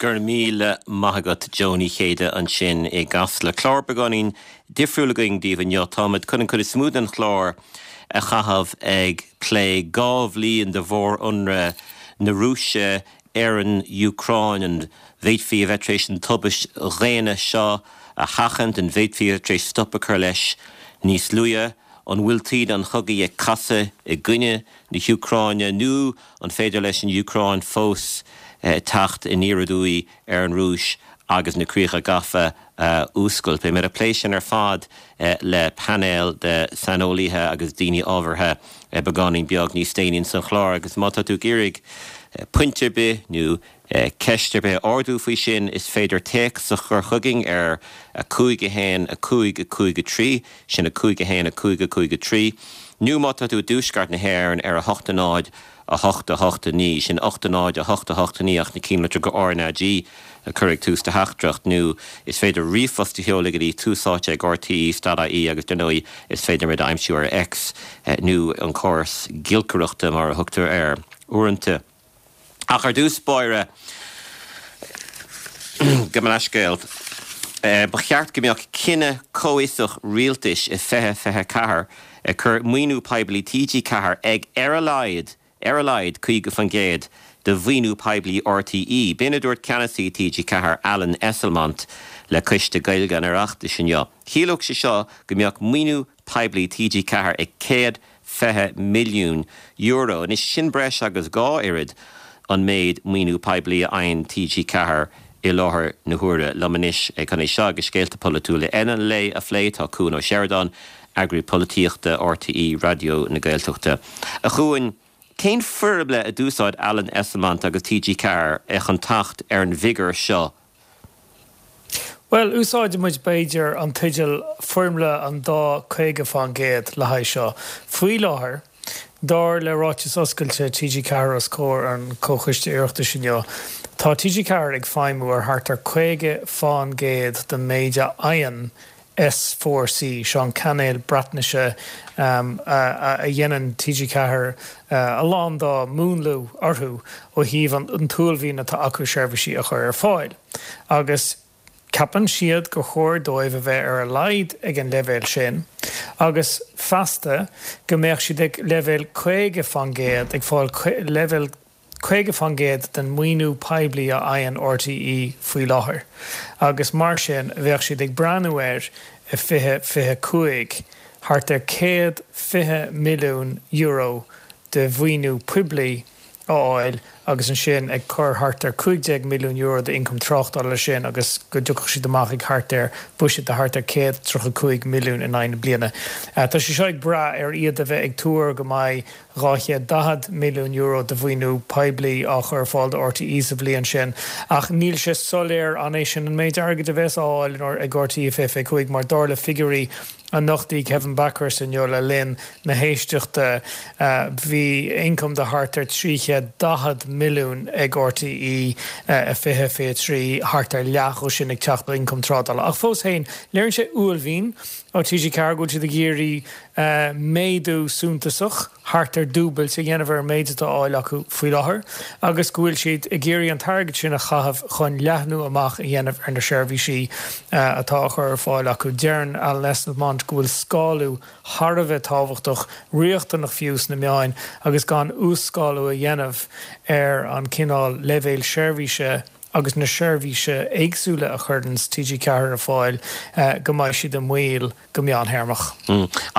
Go raibh míle maith agat Joe Ní Chéide ansin i gCasla. Clár beagáinín difriúil againn daoibh inniu. Táimid chun an chuid is mó den chlár a chaitheamh ag plé 2 bhliain de mhór-ionradh na Rúise ar an Úcráin. An bhféadfaí a bheith tar éis an tubaist dhaonna seo a sheachaint? An bhféadfaí a bheith tar éis stop a chur leis níos luaithe? An bhfuil taoide an chogaidh ag casadh i gcoinne na hÚcráine nó an féidir leis an Úcráin fós teacht aniar aduaidh ar an Rúis agus na críocha gafa a fhuascailt? Beidh muid ag plé sin ar fad le painéal de saineolaithe agus daoine ábhartha beagáinín beag níos déanaí ins an chlár agus má tá tú ag iarraidh pointe ar bith nó ceist ar bith a ardú faoi sin, is féidir téacs a chur chugainn ar 5 1 5 5 3, sin 5 1 5 5 3, nó má tá tú i dtuaisceart na hÉireann ar 8 0 8 8 9, sin 8 0 8 8 9 ach na cinnlitreacha RnaG a chur ag tús do theachtaireacht, nó is féidir ríomhphost a sheoladh go dtí túsáite ag rte dot ie agus dar ndóigh is féidir muid a aimsiú ar X nó an córas giolcaireachta mar a thugtar air uaireanta. Ach ar dtús báire, gabh mo leithscéal, ba cheart go mbeadh cinneadh comhfhiosach rialtais i 2024 ag cur maoiniú poiblí TG4 ag ar a laghad, ar a laghad 50% de mhaoiniú poiblí RTÉ. B'in a dúirt ceannasaí TG4, Alan Esslemont, le Coiste Gaeilge an Oireachtais inniu. Chiallódh sé seo go mbeadh maoiniú poiblí TG4 ag €120 milliún. Anois, sin breis agus 2 oiread an méid maoiniú poiblí a fhaigheann TG4 i láthair na huaire. Liom anois chun é seo agus scéalta polaitiúla eile an lae a phlé, tá Cuan Ó Seireadáin, Eagraí Polaitíochta RTÉ Raidió na Gaeltachta. A Chuain, cén foirmle a d'úsáid Alan Esslemont agus TG4 chun teacht ar an bhfigiúr seo? Bhuel, úsáidfidh muid, b'fhéidir, an teideal 'Foirmle an dá 50%' le haghaidh seo. Faoi láthair, dar le ráiteas oscailte TG4 os comhair an Chomhchoiste Oireachtais inniu, tá TG4 ag feidhmiú ar thart ar 50% den méid a fhaigheann S4C, seo an cainéal Breatnaise a dhéanann TG4 a lán dá múnlú orthu ó thaobh an t-uaillmhian atá acu seirbhísí a chur ar fáil. Agus ceapann siad gur chóir dóibh a bheith ar a laghad ag an leibhéal sin agus feasta go mbeadh siad ag leibhéal 50%, ag fáil leibhéal 50% den mhaoiniú poiblí a fhaigheann RTÉ faoi láthair agus mar sin bheadh siad ag breathnú ar i 2025 thart ar €120 milliún de mhaoiniú poiblí a fháil agus ansin ag cur thart ar €15 milliún d'ioncam tráchtála leis sin agus go dtiocfadh siad amach ag thart ar buiséad de thart ar 135 milliún in aghaidh na bliana. Tá sé seo ag brath ar iad a bheith ag tuar go mbeidh €240 milliún de mhaoiniú poiblí á chur ar fáil do RTÉ sa bhliain sin ach níl sé soiléir an é sin an méid airgid a bheas á fháil ag RTÉ i 2025 mar dar le figiúirí a nochtaigh Kevin Bakhurst inniu le linn na héisteachta bhí ioncam de thart ar 340 milliún ag RTÉ i 2023, thart ar leath dhó sin ag teacht ó ioncam trádála. Ach fós féin, léiríonn sé uaillmhian ó TG4 go bhfuil siad ag iarraidh méadú suntasach, thart ar dúbailt, a dhéanamh ar an méid atá á fháil acu faoi láthair agus go bhfuil siad ag iarraidh an t-airgead sin a chaitheamh chun leathnú amach a dhéanamh ar na seirbhísí atá á chur ar fáil acu. Deireann Alan Esslemont go bhfuil scálú thar a bheith tábhachtach, riachtanach fiú, sna meáin agus gan uas-scálú a dhéanamh ar an cineál leibhéil seirbhíse agus na seirbhíse éagsúla a chuireanns TG4 ar fáil go mbeidh siad i mbaol go meántéarmach.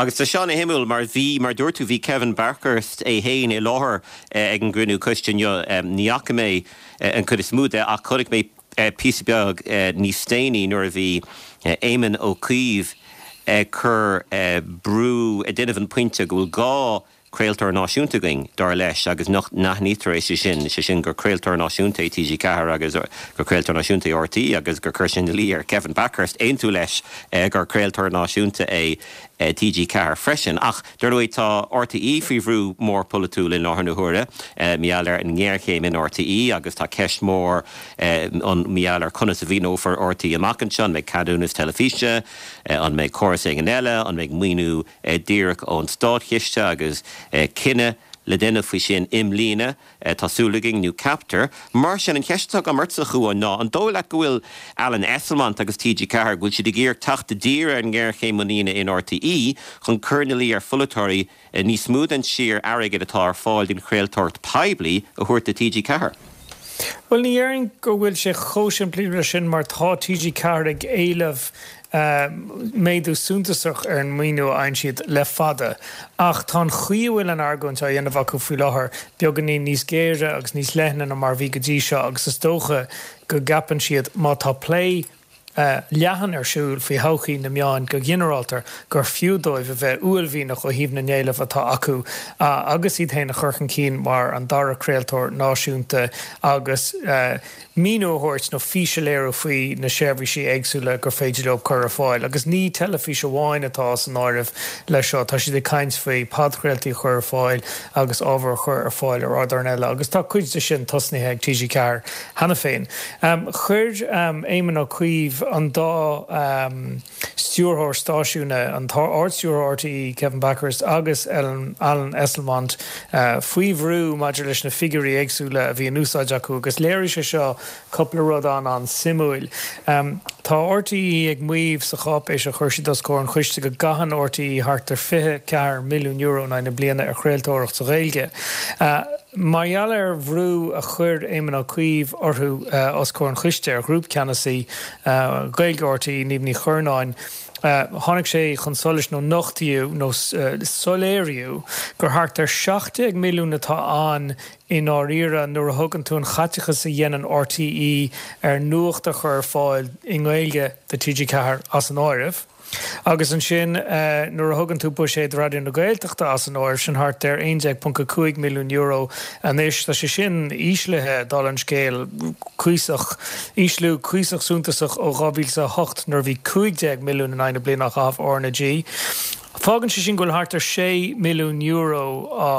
Agus tá seo ana-shuimiúil mar bhí, mar dúirt tú, bhí Kevin Bakhurst é féin i láthair ag an gcruinniú coiste inniu. Ní fhaca mé an chuid is mó de ach chonaic mé píosa beag níos déanaí nuair a bhí Éamon Ó Cuív ag cur brú, ag déanamh an pointe go bhfuil gá craoltóir náisiúnta againn, dar leis, agus nach n-aithnítear é, sé sin, sé sin gur craoltóir náisiúnta é TG4 agus gur craoltóir náisiúnta é RTÉ agus gur chuir sé ina luí ar Kevin Bakhurst aontú leis gur craoltóir náisiúnta é TG4 freisin. Ach, dar ndóigh, tá RTÉ faoi bhrú mór polaitiúil i láthair na huaire, mar gheall ar an ngéarchéim in RTÉ agus tá ceist mhór ann mar gheall ar conas a mhaoineofar RTÉ amach anseo, an mbeidh ceadúnas teilifíse, an mbeidh córas éigin eile, an mbeidh maoiniú díreach ón státchiste agus cinneadh. le déanamh faoi sin i mbliana, tá súil againn, nó ceaptar. Mar sin, an cheist atá agam ortsa, a Chuáin, ná an dóigh leat go bhfuil Alan Esslemont agus TG4, go bhfuil siad ag iarraidh teacht i dtír ar an ngéarchéim muiníne in RTÉ chun cur ina luí ar pholaiteoirí níos mó den sciar airgid atá ar fáil don chraoltóireacht poiblí a thabhairt do TG4? Bhuel, ní dhéarfainn go bhfuil sé chomh simplí leis sin mar tá TG4 ag éileamh méadú suntasach ar an maoiniú a fhaigheann siad le fada ach tá an chaoi a bhfuil an argóint á dhéanamh acu faoi láthair beagáinín níos géire agus níos leithne ná mar a bhí go dtí seo agus is dócha go gceapann siad má tá plé leathan ar siúl faoi thodhchaí na meáin go ginearálta gur fiú dóibh a bheith uaillmhianach ó thaobh na n-éileamh atá acu agus iad féin a chur chun cinn mar an dara craoltóir náisiúnta agus míniú a thabhairt nó fís a léiriú faoi na seirbhísí éagsúla gur féidir leo cur ar fáil. Agus ní teilifís amháin atá san áireamh leis seo, tá siad ag caint faoi podchraoltaí a chur ar fáil agus ábhar a chur ar fáil ar ardáin eile agus tá cuid de sin tosnaithe ag TG4 cheana féin. Chuir Éamon Ó Cuív an dá stiúrthóir stáisiúin, an tArd-Stiúrthóir RTÉ Kevin Bakhurst agus Alan Esslemont faoi bhrú maidir leis na figiúirí éagsúla a bhí in úsáid acu agus léirigh sé seo cúpla rud an-an-suimiúil. Tá RTÉ ag maíomh sa cháipéis a chuir siad os comhair an choiste go gcaitheann RTÉ thart ar €24 milliún in aghaidh na bliana ar chraoltóireacht sa Ghaeilge. Mar gheall ar bhrú a chuir Éamon Ó Cuív orthu os comhair an choiste, ar Ghrúpcheannasaí Gaeilge RTÉ, Niamh Ní Churnáin, tháinig sé chun solais nó nochtaíodh nó soiléiríodh gur thart ar 17 milliún atá ann i ndáiríre nuair a thugann tú an chaiteachas a dhéanann RTÉ ar nuacht a chur ar fáil i nGaeilge do TG4 as an áireamh. Agus ansin nuair a thugann tú buiséad Raidió na Gaeltachta as an áireamh, sin thart ar €11.5 milliún anois. Tá sé sin íslithe, dála an scéil, cuíosach, ísliú cuíosach suntasach ó 2008 nuair a bhí 15 milliún in aghaidh na bliana á chaitheamh RnaG. Fágann sé sin go bhfuil thart ar €6 milliún á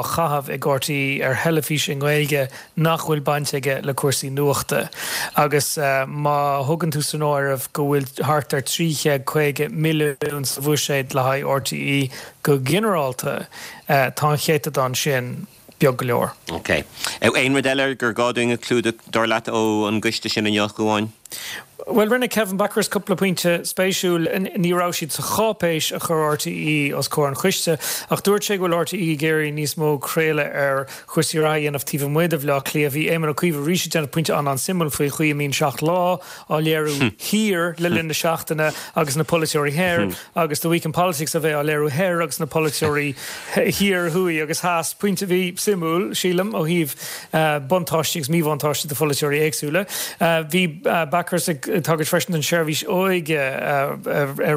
chaitheamh ag RTÉ ar theilifís i nGaeilge nach bhfuil baint aige le cúrsaí nuachta agus má thugann tú san áireamh go bhfuil thart ar 350 milliún sa bhuiséad le haghaidh RTÉ go ginearálta, tá an céatadán sin beag go leor. Ok. Aon rud eile gur gá dúinn a chlúdach, dar leat, ó an gcoiste sin inniu, a Chuáin? Bhuel, rinne Kevin Bakhurst cúpla pointe spéisiúil. Ní raibh siad sa cháipéis a chuir RTÉ os comhair an choiste, ach dúirt sé go bhfuil RTÉ ag iarraidh níos mó craoladh ar chúrsaí reatha a dhéanamh taobh amuigh de Bhaile Átha Cliath. Bhí Éamon Ó Cuív arís ag déanamh pointe an-an-suimiúil faoi chaoi a mbíonn Seacht Lá á léiriú thiar le linn na seachtaine agus na polaiteoirí thoir agus The Week in Politics a bheith á léiriú thoir agus na polaiteoirí thiar, thuaidh agus theas. Pointe a bhí suimiúil, sílim, ó thaobh buntáistí agus míbhuntáistí do pholaiteoirí éagsúla. Bhí Bakhurst ag tagairt freisin don tseirbhís óige ar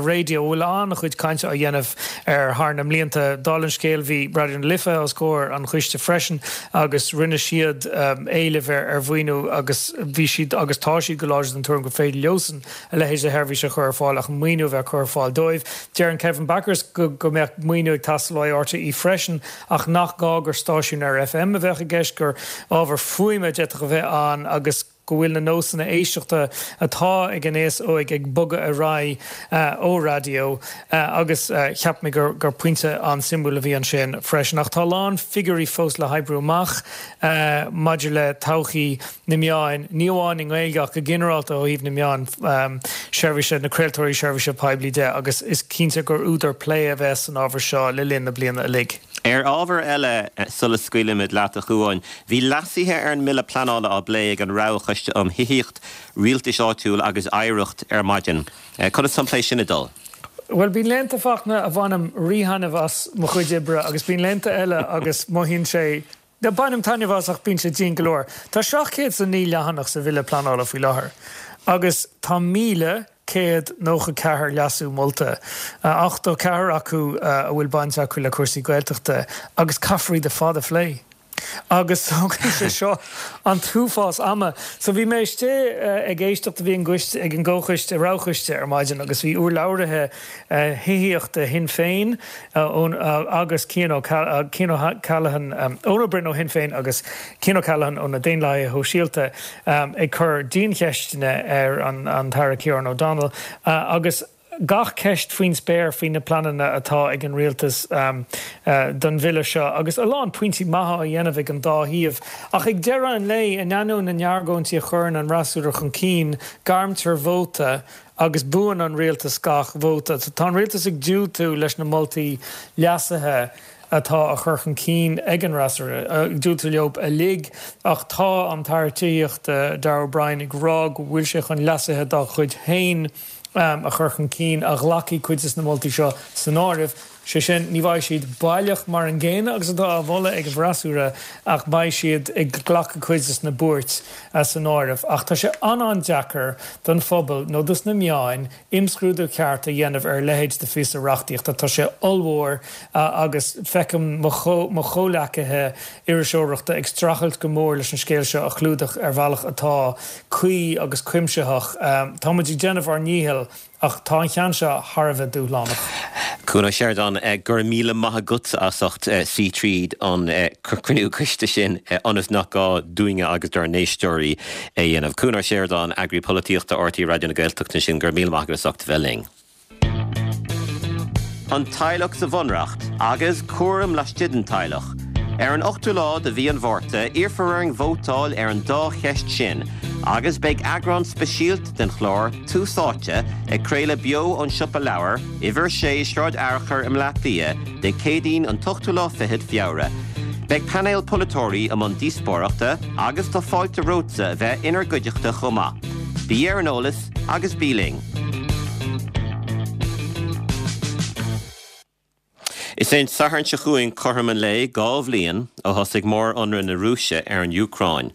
raidió, a bhfuil an-chuid cainte á dhéanamh air thar na mblianta. Dála an scéil, bhí Raidió na Life os comhair an choiste freisin agus rinne siad éileamh ar mhaoiniú agus bhí siad agus tá siad go láidir den tuairim gur féidir leosan a leithéid de sheirbhís a chur ar fáil ach maoiniú a bheith curtha ar fáil dóibh. Deireann Kevin Bakhurst go go mbeadh maoiniú ag teastáil ó RTÉ freisin ach nach gá gur stáisiún ar FM a bheadh i gceist, gur ábhar fuaime a d'fhéadfadh a bheith ann agus go bhfuil na nósanna éisteachta atá ag an aos óig ag bogadh ar aghaidh ó raidió agus cheap mé gur gur pointe an-suimiúil a bhí ansin freisin. Ach tá a lán figiúirí fós le hoibriú amach maidir le todhchaí na meáin, ní amháin i nGaeilge ach go ginearálta ó thaobh na meáin seirbhíse, na craoltóirí seirbhíse poiblí de agus is cinnte gur údar plé a bheas san ábhar seo le linn na bliana uilig. Ar ábhar eile, sula scaoilimid leat, a Chuáin, bhí leasuithe ar an mBille Pleanála á bplé ag an Roghchoiste um Thithíocht, Rialtais Áitiúil agus Oidhreacht ar maidin. Conas tá an plé sin ag dul? Bhuel, bíonn laethanta, Fachtna, a bhainim rí-thaitneamh as mo chuid oibre agus bíonn laethanta eile agus mothaíonn sé, Bainim taitneamh as ach bíonn sé dian go leor. Tá 709 leathanach sa Bhille Pleanála faoi láthair agus tá 1,194 leasú molta, 84 acu a bhfuil baint acu le cúrsaí Gaeltachta agus caithfear iad ar fad a phlé. Agus tógann sé seo an t-uafás ama. So bhí mé istigh ag éisteacht, bhí an gcoiste, ag an gcomhchoiste, roghchoiste ar maidin agus bhí urlabhraithe thithíochta Shinn Féin, agus Cian O'Callaghan, Eoin Ó Broin ó Shinn Féin agus Cian O'Callaghan ó na Daonlathaithe Shóisialta ag cur diancheisteanna ar an tAire Ciarán O'Donnell agus. gach ceist faoin spéir faoi na pleananna atá ag an rialtas don bhille seo agus a lán pointí maithe á dhéanamh ag an dá thaobh. Ach ag deireadh an lae, in ainneoin na n-argóintí a chuireann an fhreasúra chun cinn, gairmtear vóta agus buann an rialtas gach vóta. Tá an rialtas ag diúltú leis na moltaí leasaithe atá á chur chun cinn ag an fhreasúra, ag diúltú leo uilig, ach tá an tAire Tithíochta, Darragh O'Brien, ag rá go bhfuil sé chun leasuithe dá chuid féin a chur chun cinn a ghlacfaidh cuid de na moltaí seo san áireamh. Sé sin, ní bheidh siad baileach mar an gcéanna agus atá á mholadh ag an bhfreasúra ach beidh siad ag glacadh cuid de na buairt san áireamh. Ach tá sé an-an-deacair don phobal nó dos na meáin imscrúdú ceart a dhéanamh ar a leithéid de phíosa reachtaíochta. Tá sé ollmhór agus feicim mo chomhleacaithe iriseoireachta ag streachailt go mór leis an scéal seo a chlúdach ar bhealach atá cuí agus cuimsitheach. Tá muid ag déanamh ár ndícheall ach tá an ceann seo thar a bheith dúshlánach. Cuan Ó Seireadáin, go raibh míle maith agatsa as ucht suí tríd an cruinniú coiste sin ionas nach gá dúinne agus dár n-éisteoirí é a dhéanamh. Cuan Ó Seireadáin, Eagraí Polaitíochta RTÉ Raidió na Gaeltachta ansin, go raibh míle maith agat as ucht a bheith linn. An teaghlach sa Bhunreacht agus cúram laistigh den teaghlach. Ar an ochtú lá de mhí an Mhárta, iarrfar orainn vótáil ar an dá cheist sin agus beidh eagrán speisialta den chlár Tús Áite ag craoladh beo ón Siopa Leabhar, Uimhir 6, Sráid Fhearchair i mBleá Cliath, Dé Céadaoin an t-ochtú lá fichead Feabhra. Beidh painéal polaiteoirí i mbun díospóireachta agus tá fáilte romhatsa a bheith inár gcuideachta chomh maith. Bí ar an eolas agus bí linn! Is é an Satharn seo chugainn cothrom an lae 2 bhliain ó thosaigh mór-ionradh na Rúise ar an Úcráin.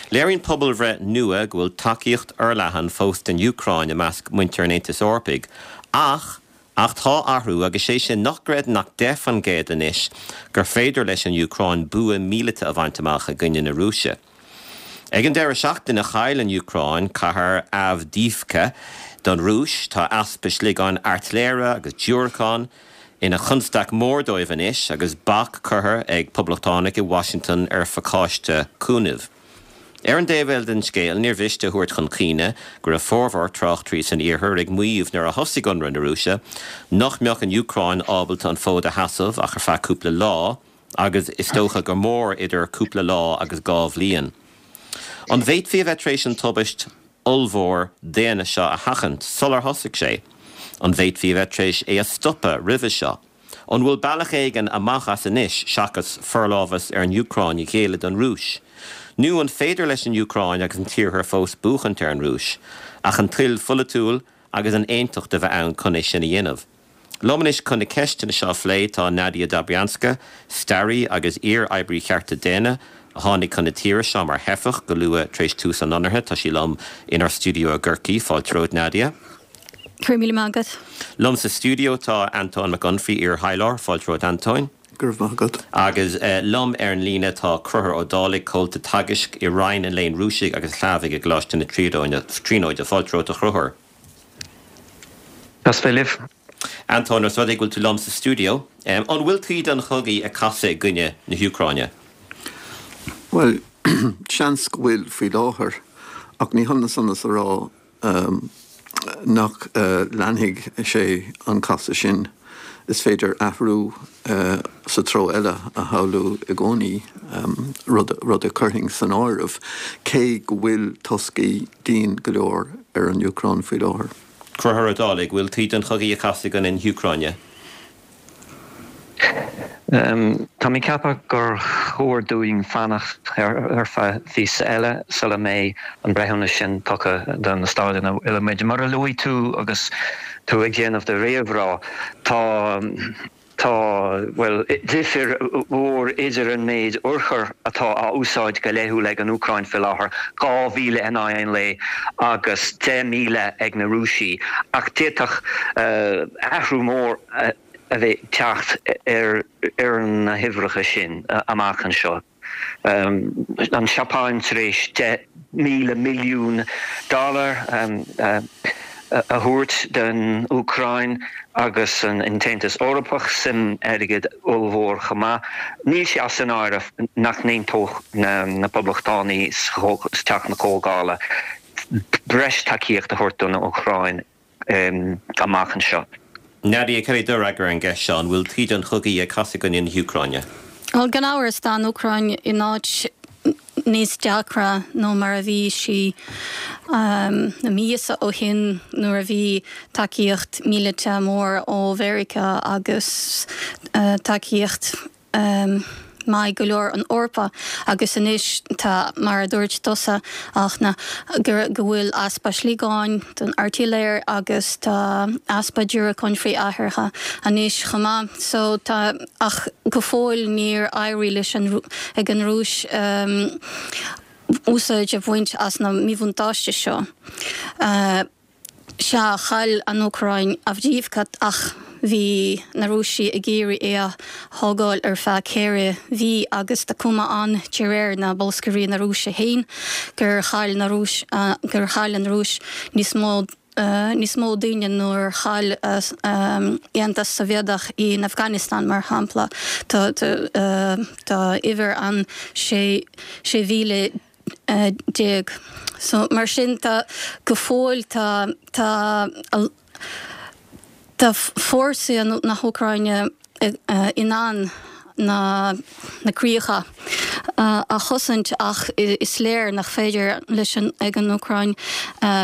Léiríonn pobalbhreith nua go bhfuil tacaíocht fhorleathan fós don Úcráin i measc muintir an Aontais Eorpaigh ach ach tá athrú agus sé sin nach gcreideann ach 10% anois gur féidir leis an Úcráin bua míleata a bhaint amach i gcoinne na Rúise. Ag an deireadh seachtaine chaill an Úcráin cathair Avdiivka don Rúis. Tá easpa sliogáin airtléire agus diúracán ina chonstaic mhór dóibh anois agus bac curtha ag poblachtánaigh i Washington ar phacáiste cúnaimh. Ar an dtaobh eile den scéal níor mhiste a thabhairt chun cuimhne go raibh formhór tráchtairí san iarthar ag maíomh nuair a thosaigh ionradh na Rúise nach mbeadh an Úcráin ábalta an fód a sheasamh ach ar feadh cúpla lá. agus is dócha gur mór idir cúpla lá agus 2 bhliain. An bhféadfaí a bheith tar éis an tubaist ollmhór daonna seo a sheachaint sular thosaigh sé? An bhféadfaí a bheith tar éis é a stopadh roimhe seo? An bhfuil bealach éigin amach as anois seachas forlámhas ar an Úcráin a ghéilleadh don Rúis? Nó an féidir leis an Úcráin agus an tIarthar fós buachaint ar an Rúis, ach an toil pholaitiúil agus an aontacht a bheith ann chun é sin a dhéanamh? Liom anois chun na ceisteanna seo a phlé tá Nadia Dobrianska, staraí agus iar-oibrí chearta daonna, a tháinig chun na tíre seo mar theifeach go luath tar éis tús an ionraithe. Tá sí liom inár stiúideo i gCorcaigh. Fáilte romhat, Nadia. Go raibh míle maith agat. Liom sa stiúideo tá Antóin Mac Unfraidh, iar-thaidhleoir. Fáilte romhat, Antóin. Go raibh maith agat. Agus liom ar an líne tá Conchúr Ó Dálaigh, comhalta teagaisc i Roinn an Léinn Rúisigh agus Shlávaigh i gColáiste na Tríonóide. Fáilte romhat, a Chonchúir. Deas bheith libh. Antóin, os rud é go bhfuil tú liom sa stiúideo, an bhfuil taoide an chogaidh ag casadh i gcoinne na hÚcráine? Bhuel, seans go bhfuil faoi láthair, ach ní hionann san is a rá nach leanfaidh sé an casadh sin. Is féidir athrú sa treo eile a shamhlú i gcónaí, rud a chuirfinn san áireamh, cé go bhfuil toscaí dian go leor ar an Úcráin faoi láthair. Conchúr Ó Dálaigh, bhfuil taoide an chogaidh ag casadh i gcoinne na hÚcráine? Tá mé ag ceapadh gur chóir dúinn fanacht ar feadh phíosa eile sula mbeidh an breithiúnas sin tugtha do na staid ina bhfuil muid. Mar a luaigh tú agus tú ag déanamh do réamhrá, tá, tá, bhuel, difir mhór idir an méid urchar atá á úsáid go laethúil ag an Úcráin faoi láthair, 2,000 in aghaidh an lae agus 10,000 ag na Rúisigh, ach d'fhéadfadh athrú mór a bheith ag teacht ar na huimhreacha sin amach anseo. An Seapáin tar éis 10,000 milliún dollar a thabhairt don Úcráin agus an tAontas Eorpach suim airgid ollmhór chomh maith. Níl sé as an áireamh nach n-aontódh na Poblachtánaigh sa Teach na Comhdhála breis tacaíocht a thabhairt don Úcráin. amach anseo. Nadia, cad é do fhreagra ar an gceist seo, an bhfuil taoide an chogaidh ag casadh i gcoinne na hÚcráine? Bhuel, gan amhras, tá an Úcráin in áit níos deacra ná mar a bhí sí na míosa ó shin nuair a bhí tacaíocht míleata mór ó Mheiriceá agus tacaíocht maith go leor ón Eorpa agus anois tá, mar a dúirt tusa, Fhachtna, go bhfuil easpa sliogáin don airtléire agus tá easpa diúracáin frith-aerártha anois chomh maith. So tá, ach go fóill níor éirigh leis an, ag an Rúis úsáid a bhaint as na míbhuntáiste seo. Sea, chaill an Úcráin Avdiivka ach bhí na Rúisigh ag iarraidh é a thógáil ar feadh 4 mhí agus tá cuma ann, de réir na bolscairí na Rúise féin, gur chaill na Rúis, gur chaill an Rúis níos mó níos mó daoine ná a chaill Aontas Sóivéadach in Afghanistan, mar shampla. Tá tá uimhir ann 16,000. So, mar sin tá, go fóill tá, tá, tá fórsaí na hÚcráine in ann na, na críocha a chosaint ach is léir nach féidir leis an, ag an Úcráin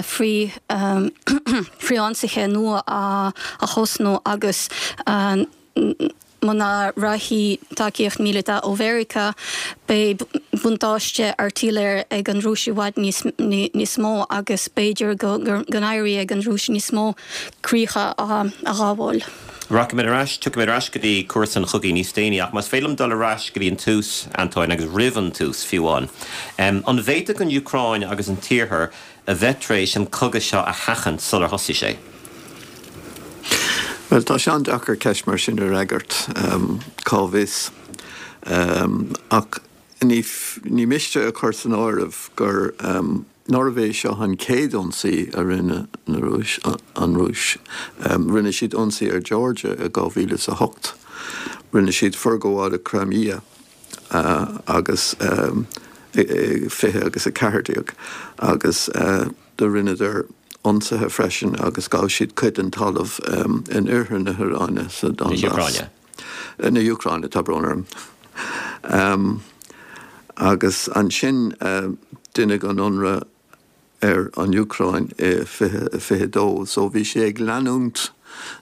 frith, frithionsaithe nua a thosnú agus Muna rachaidh tacaíocht míleata ó Mheiriceá, beidh buntáiste airtléire ag an Rúis i bhfad níos mó agus b'fhéidir go n-éireoidh ag an Rúis níos mó críocha a ghabháil. Rachaimid ar ais, tiocfaimid ar ais go dtí cúrsa an chogaidh níos déanaí ach más féidir liom dul ar ais go dtí an tús, Antóin, agus roimh an tús fiú amháin. An bhféadfadh an Úcráin agus an tIarthar a bheith tar éis an cogadh seo a sheachaint sular thosaigh sé? Bhuel, tá sé an-deacair ceist mar sin a fhreagairt, cá bhfios? Ach ní miste a chur san áireamh gur nárbh é seo an chéad ionsaí a rinne na Rúis, an Rúis. Rinne siad ionsaí ar Georgia i 2008. Rinne siad forghabháil ar Crimea. agus 20 agus 14 agus do rinneadar ionsaithe freisin agus ghabh siad cuid den talamh in oirthear na hÚcráine sa Donbas. Na hÚcráine, tá brón orm. Agus ansin deineadh an ionradh ar an Úcráin i 2022 so bhí sé ag leanúint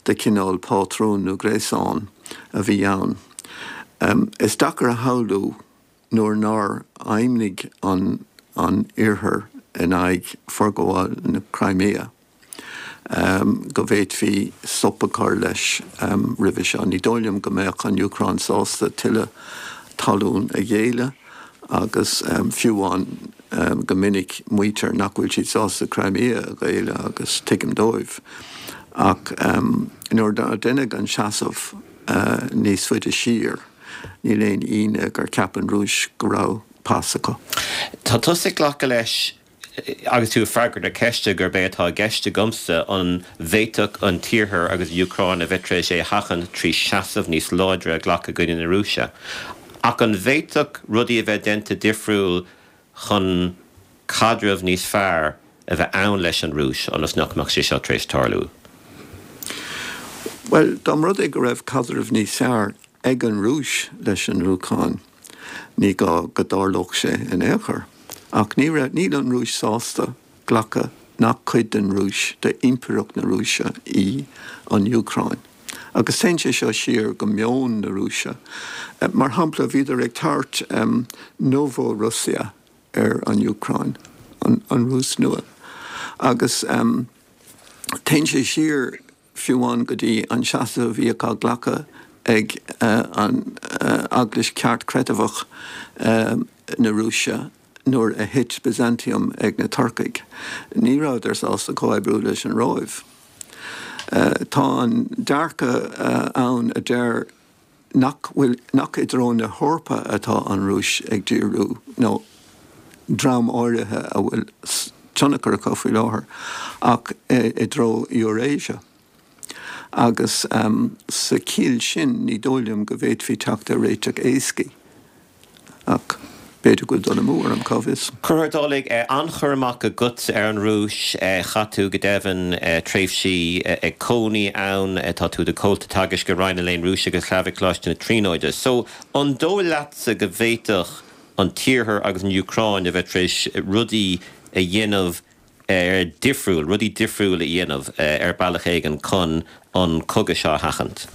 de chineál pátrún nó gréasán a bhí ann. Is deacair a shamhlú nuair nár fheidhmnigh an an Iarthar in aghaidh forghabháil na Crimea go bhféadfaí stop a chur leis roimhe seo. Ní dóigh liom go mbeadh an Úcráin sásta tuilleadh talún a ghéilleadh agus fiú amháin go minic maítear nach bhfuil siad sásta Crimea a ghéilleadh agus tuigim dóibh. Ach nuair a deineadh an seasamh níos faide siar níl aon ionadh gur cheap an Rúis go raibh pas acu. Tá tusa ag glacadh leis Agus tú ag freagairt na ceiste gurb é atá i gceist agamsa an bhféadfadh an tIarthar agus an Úcráin a bheith tar éis é a sheachaint trí seasamh níos láidre a ghlacadh i gcoinne na Rúise. Ach an bhféadfadh rudaí a bheith déanta difriúil chun caidreamh níos fearr a bheith ann leis an Rúis ionas nach mbeadh sé seo tar éis tarlú? Bhuel, dá mba rud é go raibh caidreamh níos fearr ag an Rúis leis an Úcráin, ní gá go dtarlódh sé in aon chor. Ach ní raibh, níl an Rúis sásta glacadh nach cuid den Rúis, d'impireacht na Rúise í an Úcráin. Agus téann sé seo siar go meon na Rúise. Mar shampla, bhíodar ag tabhairt Novorussia ar an Úcráin, an Rúis Nua. Agus téann sé siar fiú amháin go dtí an seasamh a bhíodh á ghlacadh ag an Eaglais Cheartchreidmheach na Rúise nuair a thit Byzantium ag na Turcaigh. Ní rabhadar sásta comhoibriú leis an Róimh. Tá an dearcadh ann a deir nach bhfuil, nach i dtreo na hEorpa atá an Rúis ag díriú, nó dream áirithe a bhfuil tionchar acu faoi láthair, ach i dtreo Eurasia. Agus sa chiall sin, ní dóigh liom go bhféadfaí teacht ar réiteach éascaí. Ach. B'fhéidir go bhfuil dul amú orm, cá bhfios? Conchúr Ó Dálaigh, an-chur amach agat ar an Rúis. Chaith tú, go deimhin, tréimhsí ag cónaí ann. Tá tú i do chomhalta teagaisc i Roinn an Léinn Rúisigh agus Shlavaigh Coláiste na Tríonóide. So, an dóigh leatsa go bhféadfadh an tIarthar agus an Úcráin a bheith tar éis rudaí a dhéanamh difriúil, rudaí difriúil a dhéanamh ar bealach éigin chun an cogadh seo a sheachaint?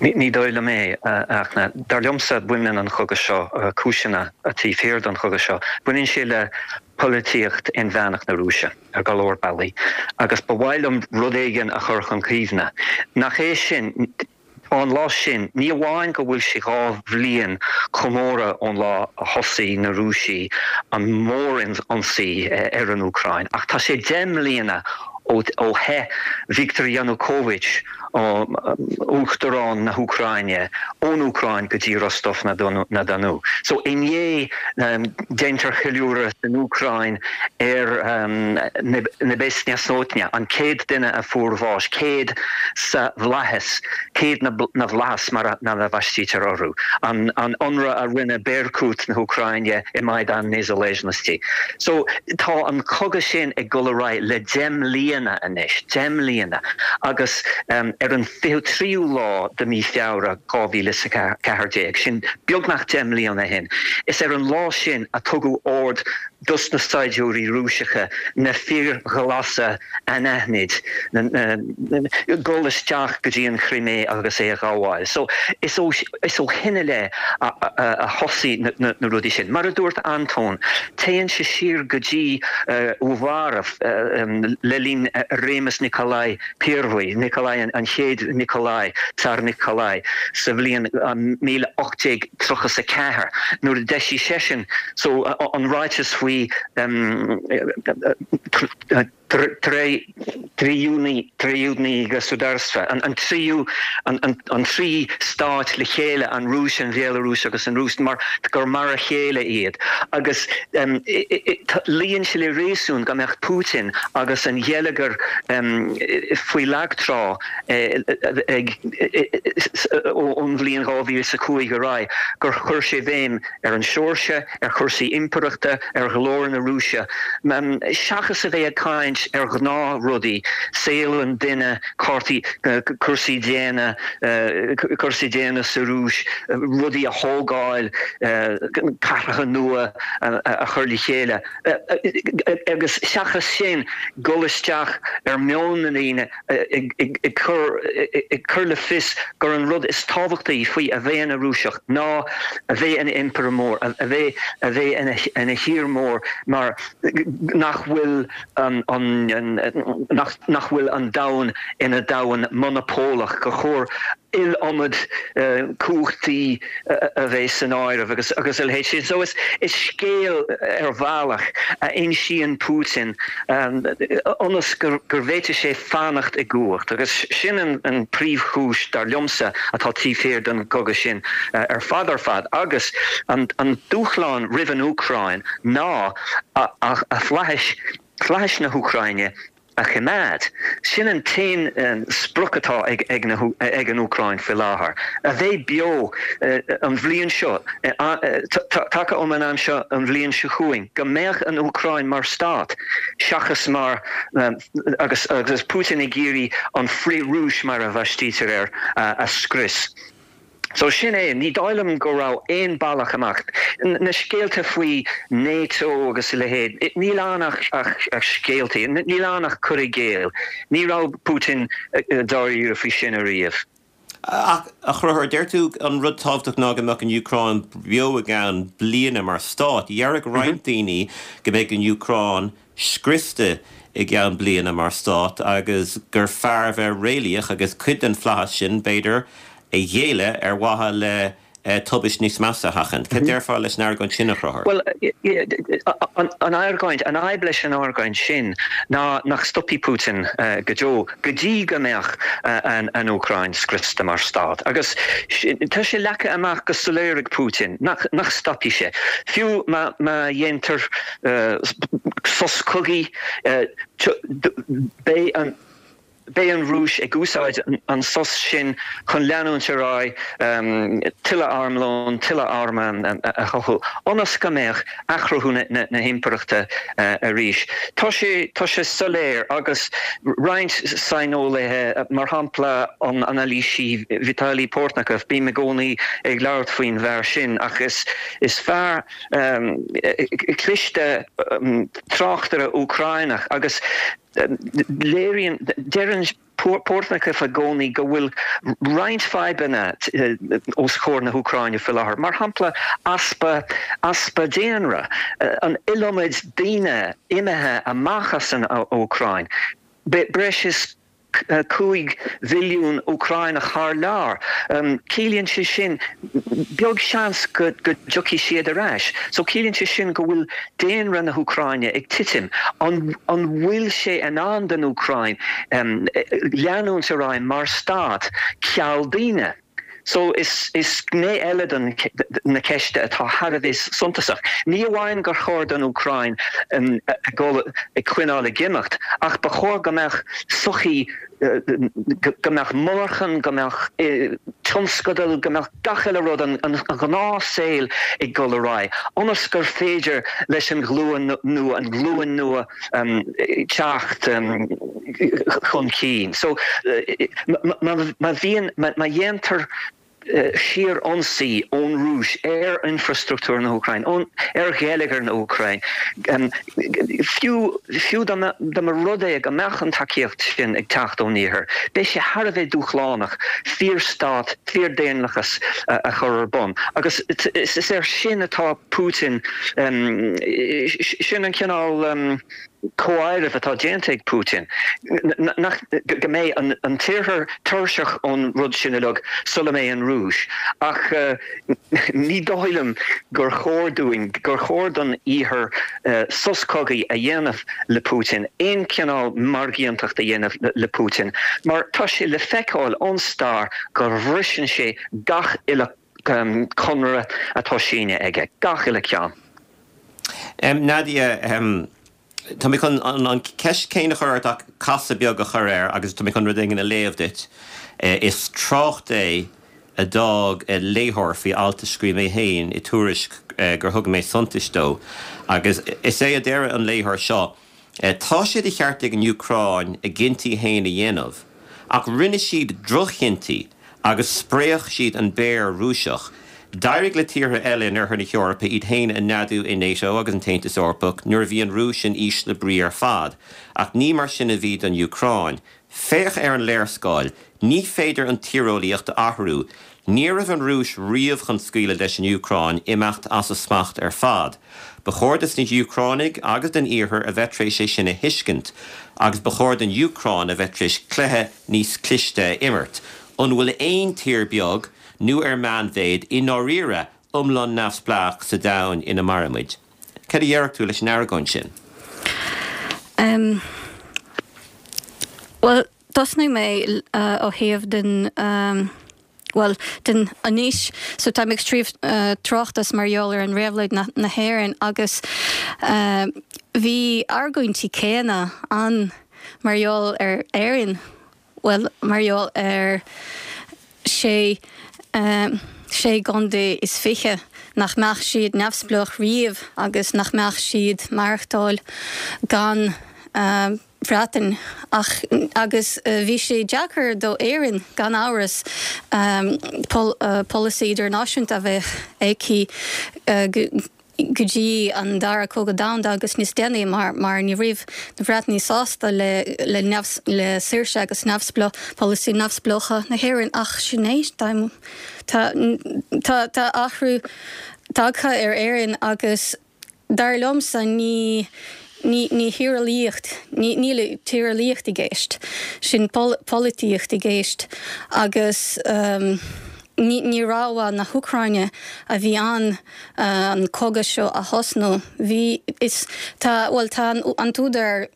Ní dóigh liom é, a Fhachtna. Dar liomsa, baineann an chogadh seo, cúiseanna taobh thiar den chogadh seo, baineann sé le polaitíocht inmheánach na Rúise ar go leor bealaí. Agus ba mhaith liom rud éigin a chur chun cuimhne. Nach é sin, tá an lá sin, ní amháin go bhfuil sé 2 bhliain comóradh ón lá a thosaigh na Rúisigh an mór-ionsaí ar an Úcráin, ach tá sé 10 mbliana ó theith Viktor Yanukovych, Uachtarán na hÚcráine, ón Úcráin go dtí Rostov-na-Donu. So inné déantar ceiliúradh san Úcráin ar Nebesnaya Sotnya, an 100 duine a fuair bháis, 100 sa bhflaitheas, 100 na bhflaitheas mar a bhaistítear orthu, an ionradh a rinne Berkut na hÚcráine i Maidan Nezalezhnosti. So tá an cogadh sin ag dul ar aghaidh le 10 mbliana anois, 10 mbliana, agus ar an 23ú lá de mí Feabhra 2014, sin beagnach 10 mbliana ó shin, is ar an lá sin a tugadh ord dos na saighdiúirí Rúiseacha na fir ghlasa anaithnid, dul isteach go dtí an Chrimé agus é a ghabháil. So is ó is ó shin i leith a thosaigh na rudaí sin. Mar a dúirt Antóin, téann sé siar go dtí Uvarov le linn réimeas Nikolai Pervyi, Nikolai an chéad Nikolai, Tsar Nikolai, sa bhliain 1834 nuair a d'eisigh seisean so an ráiteas faoi Triedinoe Gosudarstvo, an tríú, an trí stát le chéile, an Rúis, an Bhéalarúis agus an Rúis, mar gur mar a chéile iad. Agus luíonn sé le réasún go mbeadh Putin agus an gheilleagar faoi lag trá ag ón bhliain 2005 ar aghaidh, gur chuir sé béim ar an Seoirsia, ar chúrsaí impireachta, ar ghlóir na Rúise, seachas a bheith ag caint ar ghnáthrudaí, saol an duine, cártaí, cúrsaí daonna, cúrsaí daonna sa Rúis, rudaí a thógáil, cathracha nua a chur le chéile, agus seachas sin, dul isteach ar meon na ndaoine. ag cur le fios gur an rud is tábhachtaí faoi a bheith ina Rúiseach ná a bheith ina impire mór, a bheith a bheith ina thír mór mar nach bhfuil an nach bhfuil an domhan ina domhan monapólach, gur chóir iliomad cumhachtaí a bheith san áireamh agus agus a leithéid sin. So is scéal ar bhealach a insíonn Putin ionas go bhféadfaidh sé fanacht i gcumhacht agus sin an príomhchúis dar liomsa atá taobh thiar den gcogadh sin ar fad ar fad agus an dúshlán roimh an Úcráin ná a fhlaithis, flaithis na hÚcráine a choimeád. Sin an t-aon sprioc atá ag an Úcráin faoi láthair, a bheith beo an bhliain seo, taca um an am seo an bhliain seo chugainn, go mbeadh an Úcráin mar stát seachas mar, agus Putin ag iarraidh an frith-Rúis mar a bhaistítear air, a scrios. So sin é, ní dóigh liom go raibh aon bealach amach. Na scéalta faoi NATO agus a leithéid, níl ann ach scéaltaí, níl ann ach cur i gcéill. Ní raibh Putin dáiríre faoi sin ariamh. Ach, a Chonchúir, deir tú an rud tábhachtach ná go mbeadh an Úcráin beo i gceann bliana mar stát. Déarfadh roinnt daoine go mbeidh an Úcráin scriosta i gceann bliana mar stát agus gur fearr a bheith réalaíoch agus cuid den flaitheas sin, b'fhéidir, a ghéilleadh ar mhaithe le tubaist níos measa a sheachaint. Cad déarfá leis an argóint sin, a Chonchúir? Bhuel, an argóint, an fhadhb leis an argóint sin ná nach stopfaidh Putin go deo go dtí go mbeadh an Úcráin scriosta mar stát. Agus tá sé leagtha amach go soiléir ag Putin nach stopfaidh sé. Fiú má dhéantar sos cogaidh, beidh an. Beidh an Rúis ag úsáid an sos sin chun leanúint ar aghaidh tuilleadh armlóin, tuilleadh arm a chothú, ionas go mbeadh athchruthú na himpireachta arís. Tá sé, tá sé soiléir agus roinnt saineolaithe, mar shampla an anailísí Vitaly Portnikov, bím i gcónaí ag labhairt faoin bhfear sin ach is, is fear cliste tráchtaire Úcráineach agus léiríonn, deireann Portnikov i gcónaí go bhfuil roinnt fadhbanna os comhair na hÚcráine faoi láthair, mar shampla easpa, easpa daonra, an iliomad daoine imithe amach as an Úcráin, breis is 5 mhilliún Úcráineach thar lear. Ciallaíonn sé sin, beag seans go dtiocfaidh siad ar ais. So ciallaíonn sé sin go bhfuil daonra na hÚcráine ag titim. An bhfuil sé in ann don Úcráin leanúint ar aghaidh mar stát ceal daoine? So is gné eile den na ceiste atá thar a bheith suntasach. Ní amháin gur chóir don Úcráin a dhul ag coinneáil ag imeacht ach ba chóir go mbeadh sochaí, go mbeadh monarchan, go mbeadh tionscadail, go mbeadh gach uile rud, an gnáthshaol ag dul ar aghaidh ionas gur féidir leis an ghlúin nua, an ghlúin nua teacht chun cinn. So má bhíonn, má dhéantar síor-ionsaí ón Rúis ar infreastruchtúr na hÚcráine, ar gheilleagar na hÚcráine, fiú, fiú dá mba rud é go mbeadh an tacaíocht sin ag teacht ón Iarthar, beidh sé thar a bheith dúshlánach fíorstát, fíordhaonlathas a chur ar bun. Agus is air sin atá Putin, sin an cineál comháirimh atá déanta ag Putin, nach, go mbeidh an tIarthar tuirseach ón rud sin uilig sula mbeidh an Rúis. Ach ní dóigh liom gur chóir dúinn, gur chóir don Iarthar sos cogaidh a dhéanamh le Putin, aon chineál margaíontacht a dhéanamh le Putin, mar tá sé le feiceáil ón stair go bhriseann sé gach uile conradh atá sínithe aige, gach uile ceann. Nadia, tá mé chun an ceist céanna a chur ort ach casadh beag a chur air agus tá mé chun rud éigin a léamh duit. Is trácht é a d'fhág léitheoir faoi alt a scríobh mé féin i Tuairisc gur thug mé suntais dó agus is é a deir an léitheoir seo, Tá sé de cheart ag an Úcráin a gcinntí féin a dhéanamh, ach rinne siad droch-chinntí agus spréach siad an béar Rúiseach. D'éirigh le tíortha eile in Oirthear na hEorpa iad féin a neadú i NATO agus an tAontas Eorpach nuair a bhí an Rúis in ísle brí ar fad, ach ní mar sin a bhí don Úcráin. Féach ar an léarscáil. Ní féidir an tíreolaíocht a athrú. Ní raibh an Rúis riamh chun scaoileadh leis an Úcráin imeacht as a smacht ar fad. Ba chóir dos na hÚcránaigh agus don Iarthar a bheith tar éis é sin a thuiscint. Agus ba chóir don Úcráin a bheith tar éis cluiche níos cliste a imirt. An bhfuil aon tír beag, nó ar meánmhéid, i ndáiríre, iomlán neamhspleách sa domhan ina mairimid? Cad a déarfadh tú leis an argóint sin? Em. Bhuel, tosnóidh mé ó thaobh den, bhuel, den anois, so táim ag scríobh tráchtas mar gheall ar an réabhlóid na hÉireann agus bhí argóintí céanna ann mar gheall ar Éirinn. bhuel, mar gheall ar sé, sé gcontae is 20, nach mbeadh siad neamhspleách riamh agus nach mbeadh siad maireachtáil gan Bhreatain. Ach, agus bhí sé deacair do Éirinn, gan amhras, polasaí idirnáisiúnta a bheith aici go, go dtí an Dara Cogadh Domhanda agus níos déanaí mar mar ní raibh na Breatanaigh sásta le le neamh le saoirse agus neamhspleá polasaí neamhspleácha na hÉireann ach sin é tá tá tá tá athrú tagtha ar Éirinn agus dar liomsa ní ní ní thíreolaíocht ní níl tíreolaíocht i gceist sin pol polaitíocht i gceist agus ní ní rogha na hÚcráine a bhí ann an cogadh seo a thosnú. Bhí, is, tá, bhuel, tá an, an t-údar,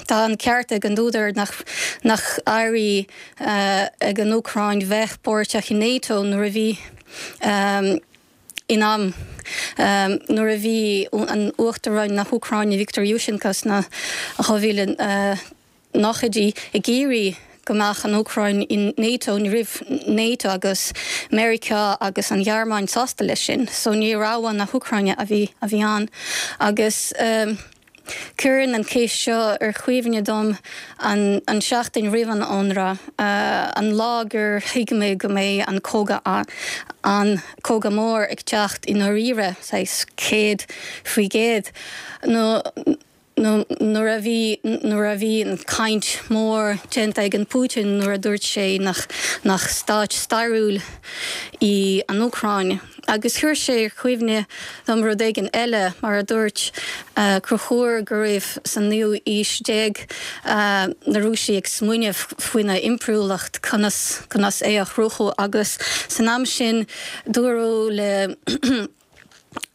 tá an ceart ag an údar nach, nach éirigh ag an Úcráin bheith páirteach i NATO nuair a bhí in am, nuair a bhí an Uachtaráin na hÚcráine Viktor Yushchenko sna 2000 nóchaidí ag iarraidh. go mbeadh an Úcráin in NATO, ní raibh NATO agus Meiriceá agus an Ghearmáin sásta leis sin, so ní rogha na hÚcráine a bhí a bhí ann. Agus cuireann an cheist seo ar chuimhne dom an an seachtain roimh an ionradh, an lá gur thuig mé go mbeidh an cogadh an cogadh mór ag teacht i ndáiríre, saghas 100%, nó nó nuair a bhí nuair a bhí an caint mór déanta ag an Putin nuair a dúirt sé nach nach stáit stairiúil í an Úcráin. Agus chuir sé ar chuimhne dom rud éigin eile, mar a dúirt Conchúr go raibh san naoú aois déag na Rúisigh ag smaoineamh faoina impiriúlacht, conas conas é a chruthú agus san am sin dúradh le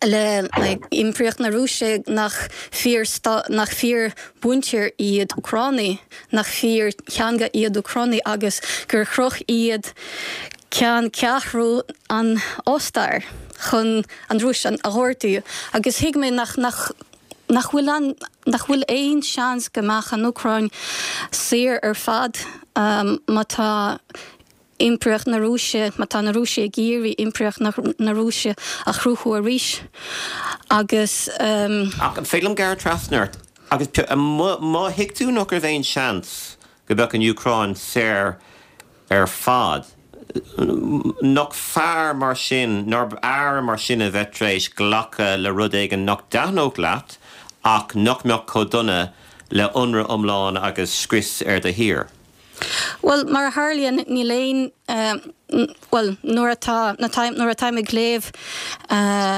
le Impireacht na Rúise nach fíor nach fíor mhuintir iad Úcránaigh, nach fíor theanga iad Úcránaigh agus gur chroch iad ceanncheathrú an Ostair chun an Rúis a ghortú agus thuig mé nach nach nach bhfuil an nach bhfuil aon seans go mbeadh an Úcráin saor ar fad má tá Impireacht na Rúise, má tá na Rúisigh ag iarraidh Impireacht na Rúise a chruthú arís agus. Ach an féidir liom gearradh trasna ort agus má thuig tú nach raibh aon seans go mbeadh an Úcráin saor ar fad, nach fearr mar sin, nárbh fhearr mar sin a bheith tar éis glacadh le rud éigin nach dtaitneodh leat ach nach mbeadh chomh dona le ionradh iomlán agus scrios ar do thír? Bhuel, mar a tharlaíonn, níl aon, bhuel, nuair atá, nuair atáim ag léamh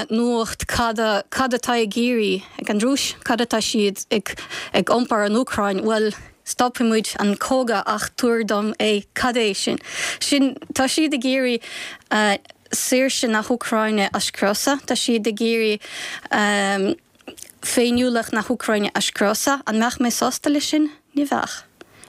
nuacht, cad a, cad atá ag iarraidh ag an Rúis, cad atá siad ag, ag iompar an Úcráin, bhuel, stopfaidh muid an cogadh ach tabhair dom é, cad é sin? Sin, tá siad ag iarraidh saoirse na hÚcráine a scriosadh, tá siad ag iarraidh féiniúlacht na hÚcráine a scriosadh. An mbeadh mé sásta leis sin? Ní bheadh.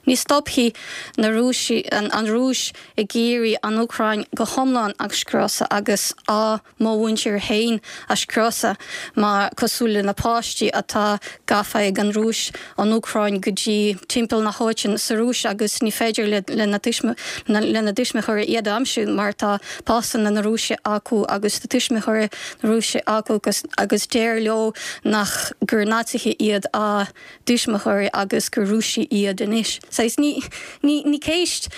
Ní stopfaidh na Rúisigh, an Rúis ag iarraidh an Úcráin go hiomlán a scriosadh agus á mo mhuintir féin a scriosadh mar cosúil le na páistí atá gafa ag an Rúis ón Úcráin go dtí timpeall na háite sa Rúis agus ní féidir lena dtuismitheoirí iad a aimsiú mar tá pasanna na Rúise acu agus tuismitheoirí na Rúise acu agus deir leo nach gur Naitsithe iad a dtuismitheoirí agus gur Rúisigh iad anois. Saghas ní ní ní ceist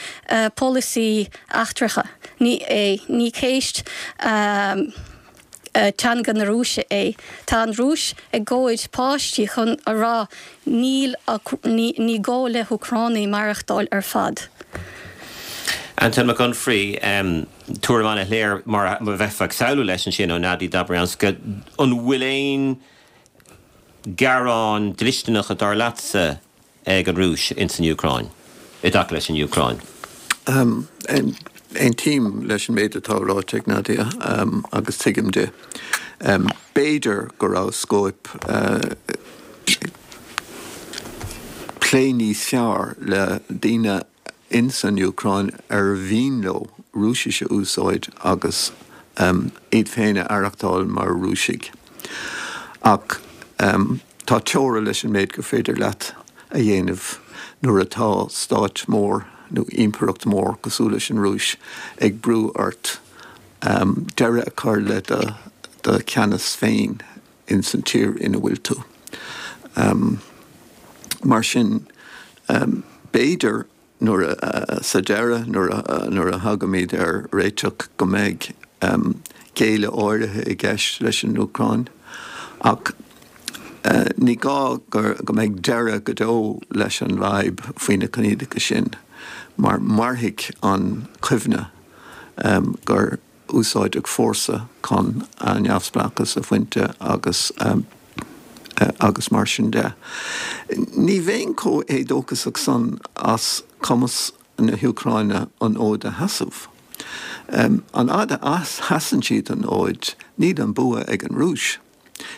polasaí eachtracha ní é, ní ceist teanga na Rúise é. Tá an Rúis ag gabháil páistí chun a rá níl ní ní gá le hÚcránaigh maireachtáil ar fad. Antóin Mac Unfraidh, Tuairim an-shoiléir mar a bheifeá ag samhlú leis ansin ó Nadia Dobrianska. An bhfuil aon gearáin dlisteanacha dar leatsa ag an Rúis ins an Úcráin, i dtaca leis an Úcráin? Aontaím leis an méid atá ráite ag Nadia agus tuigim di. B'fhéidir go raibh scóip plé níos fearr le daoine ins an Úcráin ar mhian leo Rúisis a úsáid agus iad féin a aireachtáil mar Rúisigh. Ach tá teora leis an méid gur féidir leat a dhéanamh nuair atá stát mór nó impireacht mhór cosúil leis an Rúis ag brú ort deireadh a chur le do cheannas féin ins an tír ina bhfuil tú. Mar sin, b'fhéidir nuair a, sa deireadh, nuair a, nuair a thagaimid ar réiteach go mbeidh géilleadh áirithe i gceist leis an Úcráin. Ach ní gá go mbeidh deireadh go deo leis an bhfadhb faoi na coinníollacha sin, mar mairfidh an chuimhne gur úsáideadh fórsa chun a neamhspleáchas a bhaint agus agus mar sin de. Ní bheinn chomh héadóchasach san as cumas na hÚcráine an fhóid a sheasamh. An fhad a sheasann siad an fhóid, níl an bua ag an Rúis.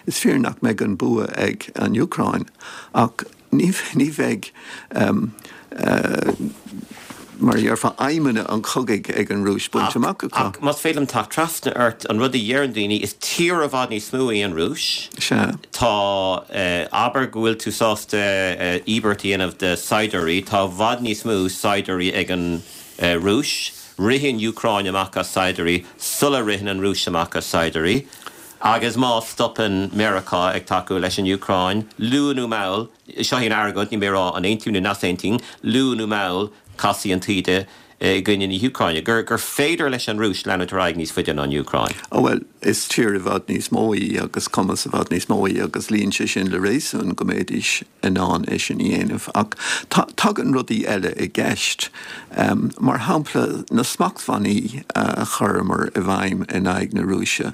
Is fíor nach mbeidh an bua ag an Úcráin, ach ní bheidh. Mar a déarfá, aidhmeanna an chogaidh ag an Rúis bainte amach acu. Ach más féidir liom teacht trasna ort, an rud a dheireann daoine, is tír i bhfad níos mó í an Rúis. Sea. Tá, abair go bhfuil tú sásta íobairt a dhéanamh de saighdiúirí, tá i bhfad níos mó saighdiúirí ag an Rúis. Ritheann an Úcráin amach as saighdiúirí sula ritheann an Rúis amach as saighdiúirí. Agus má stopann Meiriceá ag tacú leis an Úcráin, luath nó mall, Seo í an argóint, níl mé ag rá an aontaím nó nach aontaím, luath nó mall casfaidh an taoide i gcoinne na hÚcráine, gur gur féidir leis an Rúis leanúint ar aghaidh níos faide ná an Úcráin. Ó bhuel, is tír i bhfad níos mó í agus cumas i bhfad níos mó í agus luíonn sé sin le réasún go mbeidís in ann é sin a dhéanamh. Ach tagann rudaí eile i gceist. Mar shampla, na smachtbhannaí a chuireamar i bhfeidhm in aghaidh na Rúise.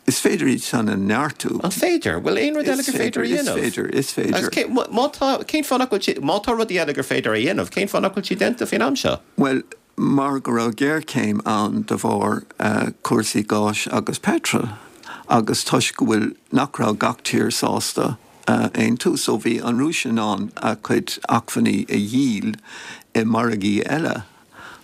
Is féidir iad san a neartú. An féidir? Bhfuil aon rud eile gur féidir a dhéanamh? Is féidir, is féidir. Agus cé, má tá, cén fáth nach bhfuil sé, má tá rudaí eile gur féidir a dhéanamh, cén fáth nach bhfuil siad déanta faoin am seo? Bhuel, mar go raibh géarchéim ann de bharr cúrsaí gáis agus peitril agus toisc go bhfuil, nach raibh gach tír sásta aontú. So bhí an Rúis in ann a cuid acmhainní a dhíol i margaí eile.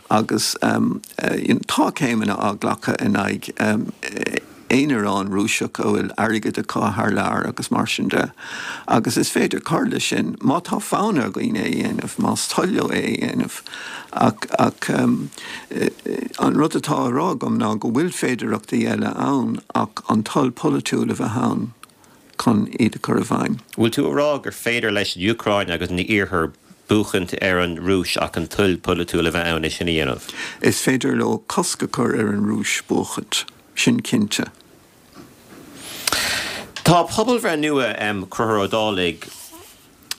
Agus tá céimeanna á nglacadh in aghaidh aonaráin Rúiseach a bhfuil airgead acu thar lear agus mar sin de. Agus is féidir cur leis sin má tá fonn ar dhaoine é a dhéanamh, más toil leo é a dhéanamh. Ach ach an rud atá á rá agam ná go bhfuil féidearthachtaí eile ann ach an toil pholaitiúil a bheith ann. chun iad a chur i bhfeidhm. Bhfuil tú a rá gur féidir leis an Úcráin agus an Iarthar buachaint ar an Rúis ach an toil polaitiúil a bheith ann é sin a dhéanamh? Is féidir leo cosc a chur ar an Rúis buachaint, sin cinnte. Tá pobalbhreith nua, Conchúr Ó Dálaigh,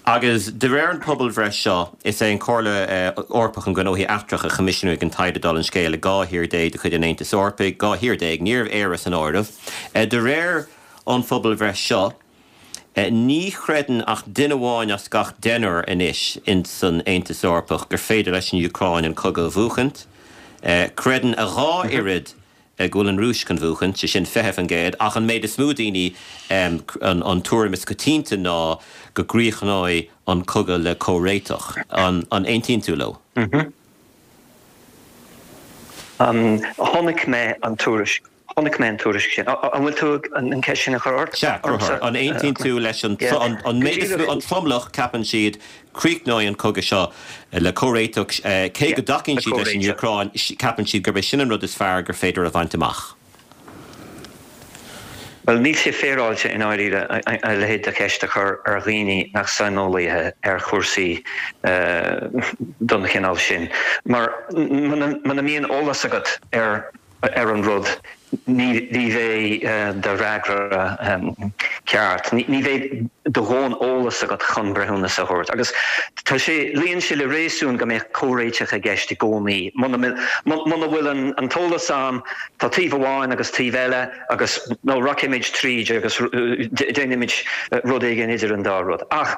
Agus de réir an pobalbhreith seo, is é an Chomhairle Eorpach um Ghnóthaí Eachtracha a choimisiúnaigh an taighde dála an scéil i 12 thír de chuid an Aontais Eorpaigh, 12 thír, ní raibh Éire san áireamh. De réir an phobalbhreith seo, ní chreideann ach duine amháin as gach deichniúr anois ins an Aontas Eorpach gur féidir leis an Úcráin an cogadh a bhuachaint. Creideann a dhá oiread go bhfuil an Rúis chun bhuachaint, sé sin 20%, ach an méid is mó daoine, an tuairim is coitianta ná go gcríochnóidh an cogadh le comhréiteach. An aontaíonn tú leo? Chonaic mé an tuairisc. Chonaic mé an tuairisc sin. An bhfuil tú an ceist sin a chur ort? Sea, Conchúr. An aontaíonn tú leis an an méid is mó, an tromlach, ceapann siad, críochnóidh an cogadh seo le comhréiteach, cé go dtacaíonn siad leis an Úcráin, ceapann siad gurb é sin an rud is fearr gur féidir a bhaint amach. Bhuel, níl sé féaráilte i ndáiríre a leithéid de cheist a chur ar dhaoine nach saineolaithe ar chúrsaí den chineál sin, mar muna mbíonn eolas agat ar ar an rud, ní bheidh do fhreagra ceart, ní bheidh do dhóthain eolas agat chun breithiúnas a thabhairt. Agus tá sé, luíonn sé le réasún go mbeadh comhréiteach i gceist i gcónaí. Muna bhfuil an t-eolas ann, tá taobh amháin agus taobh eile agus nó rachaimid tríd agus déanfaimid rud éigin idir an dá rud. Ach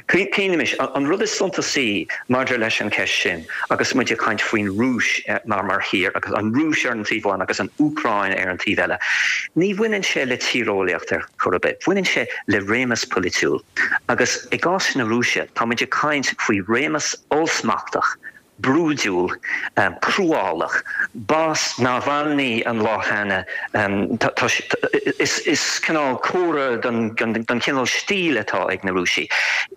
cuimhnímis, an rud is suntasaí maidir leis an cheist sin, Agus muid ag caint faoin Rúis mar mar thír, agus an Rúis ar an taobh amháin agus an Úcráin ar an taobh eile, ní bhaineann sé le tíreolaíocht ar chor ar bith. Baineann sé le réimeas polaitiúil. Agus i gcás na Rúise, tá muid ag caint faoi réimeas ollsmachtach, brúidiúil, cruálach. B'as Navalny an lá cheana. Is cineál comhartha den chineál stíl atá ag na Rúisigh.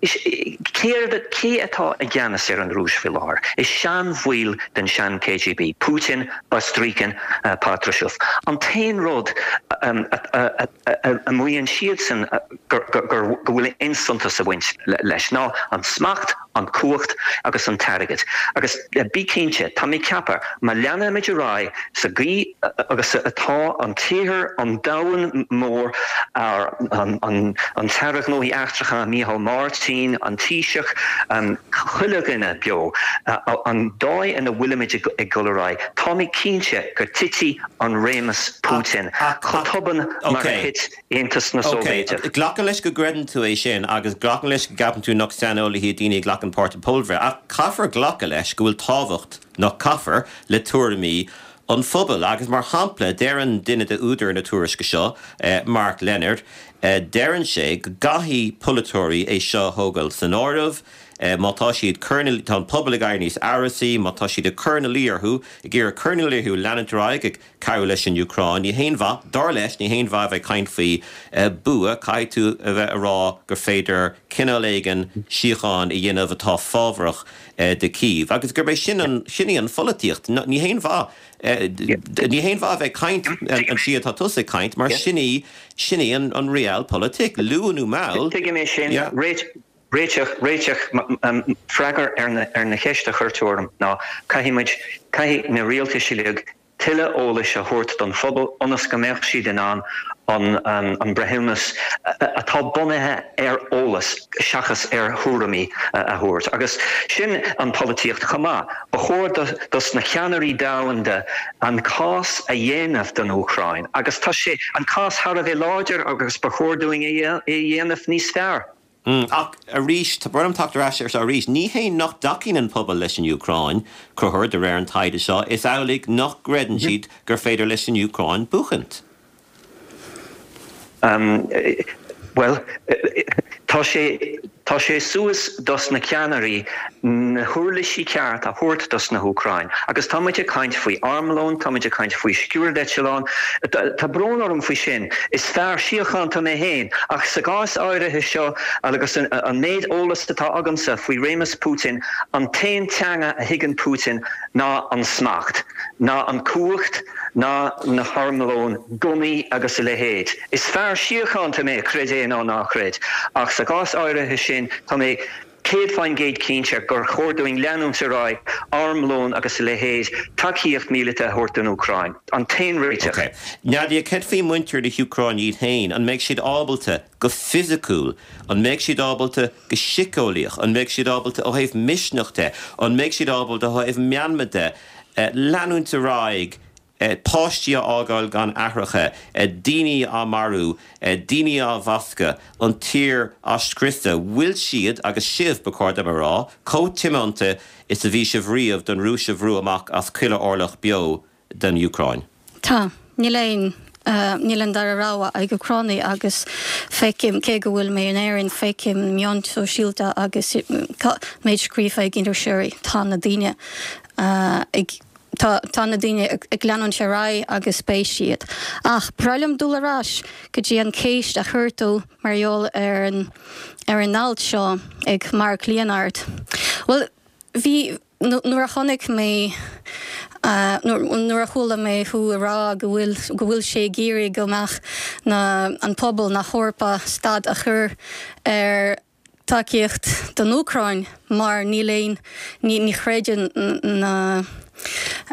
Céard, cé atá i gceannas ar an Rúis faoi láthair? Is seanbhaill den sean-KGB, Putin, Bastrykin, Patrushev. An t-aon rud a maíonn siadsan go bhfuil aon suntas ag baint leis ná an smacht, an cumhacht agus an t-airgead. Agus bí cinnte, tá mé ag ceapadh, má leanaimid ar aghaidh sa gcaoi agus atá an t-iarthar, an domhan mór, an tAire Gnóthaí Eachtracha Micheál Martin, an Taoiseach, chuile dhuine beo, an dóigh ina bhfuilimid ag dul ar aghaidh, tá mé cinnte go dtitfidh an réimeas Putin chomh tobann mar a thit Aontas na Sóivéideach. Ok, glacaim leis go gcreideann tú é sin agus glacaim leis go gceapann tú nach saineolaithe iad daoine a ghlacann páirt i bpobalbhreith ach caithfear glacadh leis go bhfuil tábhacht, nach caithfear, le tuairimí an phobail agus mar shampla deireann duine de údair na tuairisce seo, Mark Leonard, deireann sé go gcaithfidh polaiteoirí é seo a thógáil san áireamh. Má tá siad cur ina, tá an pobal ag éirí níos amhrasaí, má tá siad ag cur ina luí orthu, ag iarraidh cur ina luí orthu leanúint ar aghaidh ag cabhrú leis an Úcráin, ní haon mhaith, dar leis, ní haon mhaith a bheith ag caint faoi bua, caithfidh tú a bheith ag rá gur féidir cineál éigin síocháin a dhéanamh atá fábharach do Kyiv agus gurb é sin an, sin í an pholaitíocht. Ní haon mhaith, ní haon mhaith a bheith ag caint an tslí atá tusa ag caint mar sin í, sin í an realpolitik, luath nó mall. Tuigim é sin. Réiteach, réiteach, freagra ar na, ar na cheist a chuir tú orm ná caithfidh muid, caithfidh na rialtais uilig tuilleadh eolais a thabhairt don phobal ionas go mbeadh siad in ann an, an breithiúnas atá bunaithe ar eolas seachas ar thuairimí a thabhairt. Agus sin an polaitíocht chomh maith. Ba chóir do, dos na ceannairí domhanda an cás a dhéanamh don Úcráin agus tá sé, an cás thar a bheith láidir agus ba chóir dúinn é a dhéanamh níos fearr. Ach arís, tá brón orm teacht ar ais air seo arís, ní hé nach dtacaíonn an pobal leis an Úcráin, Conchúr, de réir an taighde seo, is amhlaidh nach gcreideann siad gur féidir leis an Úcráin buachaint. Bhuel, tá sé, tá sé suas dos na ceannairí na huirlisí ceart a thabhairt dos na hÚcráin. Agus tá muid ag caint faoi armlón, tá muid ag caint faoi sciúrdeitleán, tá brón orm faoi sin. Is fear síochánta mé féin, ach sa gcás áirithe seo agus an méid eolas atá agamsa faoi réimeas Putin, an t-aon teanga a thuigeann Putin ná an smacht, ná an cumhacht, ná na harmlóin, gunnaí agus a leithéid. Is fear síochánta mé, creid é nó ná creid, ach sa gcás áirithe sin tá mé 100% cinnte gur chóir dúinn leanúint ar aghaidh, armlón agus a leithéid, tacaíocht míleata a thabhairt don Úcráin. An t-aon réiteach. Ok. Nadia, céard faoi muintir na hÚcráine iad féin? An mbeidh siad ábalta go fisiciúil? An mbeidh siad ábalta go síceolaíoch? An mbeidh siad ábalta ó thaobh misneach de? An mbeidh siad ábalta ó thaobh meanma de leanúint ar aghaidh páistí á fhágáil gan aithreacha, daoine á marú, daoine á bhascadh, an tír á scriosadh. Bhfuil siad, agus sibh, ba chóir dom a rá, chomh tiomanta is a bhí sibh riamh don Rúis a bhrú amach as chuile orlach beo den Úcráin? Tá. Níl aon, níl an dara rogha ag Úcránaigh agus feicim, cé go bhfuil mé in Éirinn, feicim na meáin shóisialta agus méid scríofa ag iriseoirí, tá na daoine ag. Tá, tá na daoine ag leanúint ar aghaidh agus beidh siad. Ach ba bhreá liom dul ar ais go dtí an chéist a chuir tú mar gheall ar an, ar an alt seo ag Mark Leonard. Bhuel, bhí, nuair a chonaic mé, nuair a chuala mé thú ag rá go bhfuil, go bhfuil sé ag iarraidh go mbeadh na, an pobal na hEorpa stad a chur ar, tacaíocht don Úcráin mar níl aon, ní chreideann na